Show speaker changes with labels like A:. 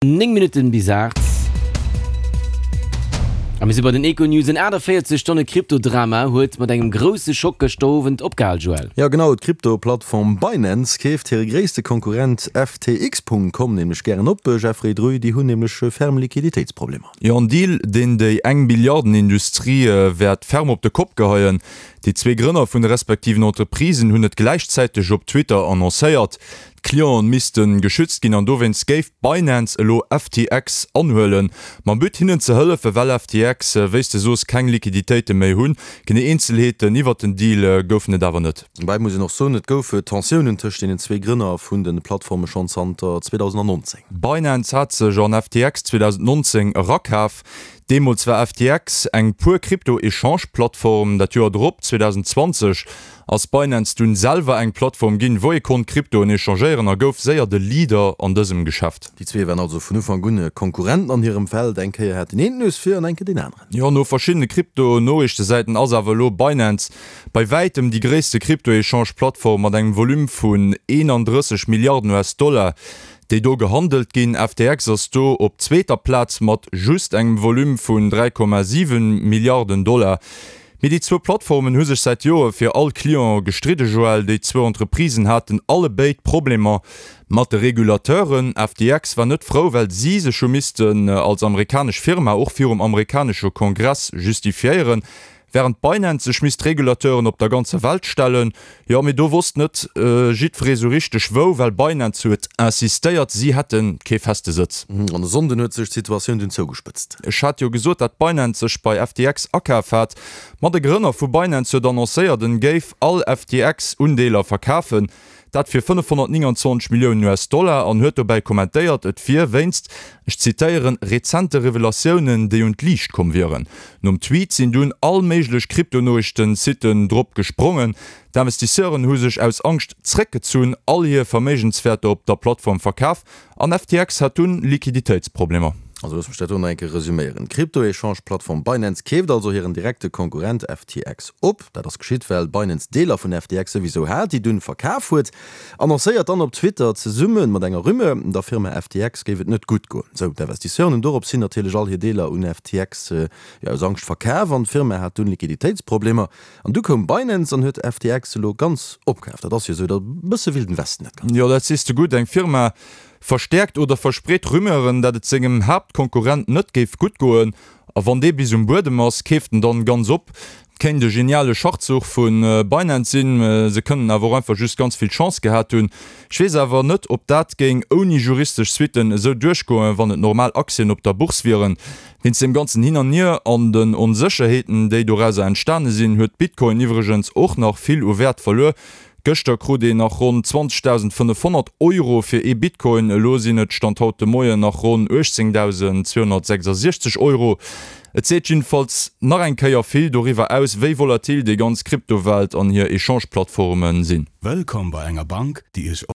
A: 9 Minutten bis 8. A mir si bei den Econews. En 48 Stonne Krypto-Drama huet mat engem grousse Schock gëschter Owend opgehal, Joël.
B: Jo genau, d'Krypto-Plattform Binance keeft hire gréisste Konkurrent FTX.com nämlech gären op. Jeffrey Druy, déi hunn nämlech ferm Liquiditéitsproblemer.
C: Jo, en Deal, deen déi eng Milliarden-Industrie wäert ferm op de Kopp geheien. Déi zwee Grënner vun de respektiven Entreprisen hunn et gläichzäiteg op Twitter annoncéiert. D'Clienten misste geschützt ginn an dowéinst géif Binance elo FTX anhuelen, mam But hinnen ze hëllefen, well FTX, wéi s de soos, keng Liquiditéite méi hunn. Genee Eenzelheeten iwwert den Deal goufen et awer net.
B: Dobäi muss een och soen, et goufe Tensiounen tëscht deenen zwee Grënner vun de Plattforme schonn zanter 2019.
C: Binance hat sech an FTX 2019 erakaf. Deemools war FTX eng puer Krypto-Echange-Plattform. Dat Joer drop, 2020, ass Binance dunn selwer eng Plattform ginn, wou ee konnt Kryptoen echangéieren a gouf séier de Leader an dësem Geschäft.
B: Déi zwee waren also vun Ufank un Konkurrenten an hirem Feld. Eng Kéier hat deen een d'Nues vir an eng Kéier deen aneren.
C: Jo, no verschiddene Krypto-Noriichtesäiten ass awer elo Binance bei wäitem déi gréisste Krypto-Echange-Plattform mat engem Volume vun 31 Milliarden US-Dollar, déi do gehandelt ginn. FTX ass do op zweeter Plaz mat just engem Volume vun 3,7 Milliarden Dollar. Mee déi zwou Plattformen hu sech säit Jore fir all Client gestridde, Joël. Déi zwou Entreprisen haten allebéid Problemer mat de Regulateuren. FTX war net frou, well si sech hu missten als amerikanesch Firma och virum amerikanesche Kongress justifiéieren, wärend Binance sech misst Regulateuren op der ganzer Welt stellen. Jo, mee do wosst net jiddweree sou richteg wou, well Binance huet insistéiert, si hätte kee feste Sëtz.
B: An e Sonnden huet sech d'Situatioun dunn zougespëtzt.
C: Ech hat jo gesot, dat Binance sech bei FTX akaf hat. Ma de Grënner vu Binance huet annoncéiert, en géif all FTX-Undeeler verkafen. Dat fir 529 Milliounen US-Dollar an huet dobäi kommentéiert, et wier wéinst, ech zitéieren, rezente Revelatiounen, déi un d'Liicht komm wieren. Nom Tweet sinn dunn all méiglech Kryptonoriichten-Siten drop gesprongen. D'Investisseuren hu sech aus Angscht zréckgezunn, all hir Verméigenswäerter op der Plattform verkaf an FTX hat dunn Liquiditéitsproblemer.
B: Also looss mech dat do nach eng Kéier resuméieren. D'Krypto-Echange-Plattform Binance keeft also hiren direkte Konkurrent FTX op. Dat ass geschitt, well Binance Deeler vun FTX souwisou hat, déi dunn verkaf huet. Annoncéiert dann op Twitter zesumme mat enger Rumeur, der Firma FTX géif et net gutt goen. Sou, d'Investisseuren hunn dorops hin natierlech all hir Deeler un FTX, jo, aus Angscht verkaf an d'Firma hat dunn Liquiditéitsproblemer. An du koum Binance an huet FTX elo ganz opkaf. Dat ass jo sou e bësse Wilden Westen dat
C: Ganzt. Jo, dat sees de gutt. Eng Firma verstäerkt oder verspreet Rumeuren, dat et sengem Haaptkonkurrent net géif gutt goen. A wann dee bis um Buedem ass, keeft en dann ganz op. Kéint e geniale Schachzuch vu Binance sinn, se kënnen awer och einfach just ganz vill Chance gehat hunn. Ech weess awer net, ob dat géing ouni juristesch Suitten esou duerchgoen, wann et normal Aktien op der Bourse wieren. Wéinst deem ganzen Hin an Hier an den Onsécherheeten, déi dorauser entstane sinn, huet Bitcoin iwwregens och nach vill u Wäert verluer. Gëschter krut een nach ronn 20.500 Euro fir ee Bitcoin, elo sinn et Stand haut de Moien nach ronn 18.266 Euro. Et seet jiddefalls nach eng Kéier vill doriwwer aus, wéi volatil déi ganz Kryptowelt an hir Echange-Plattforme sinn.
D: Wëllkomm bei enger Bank, déi Iech.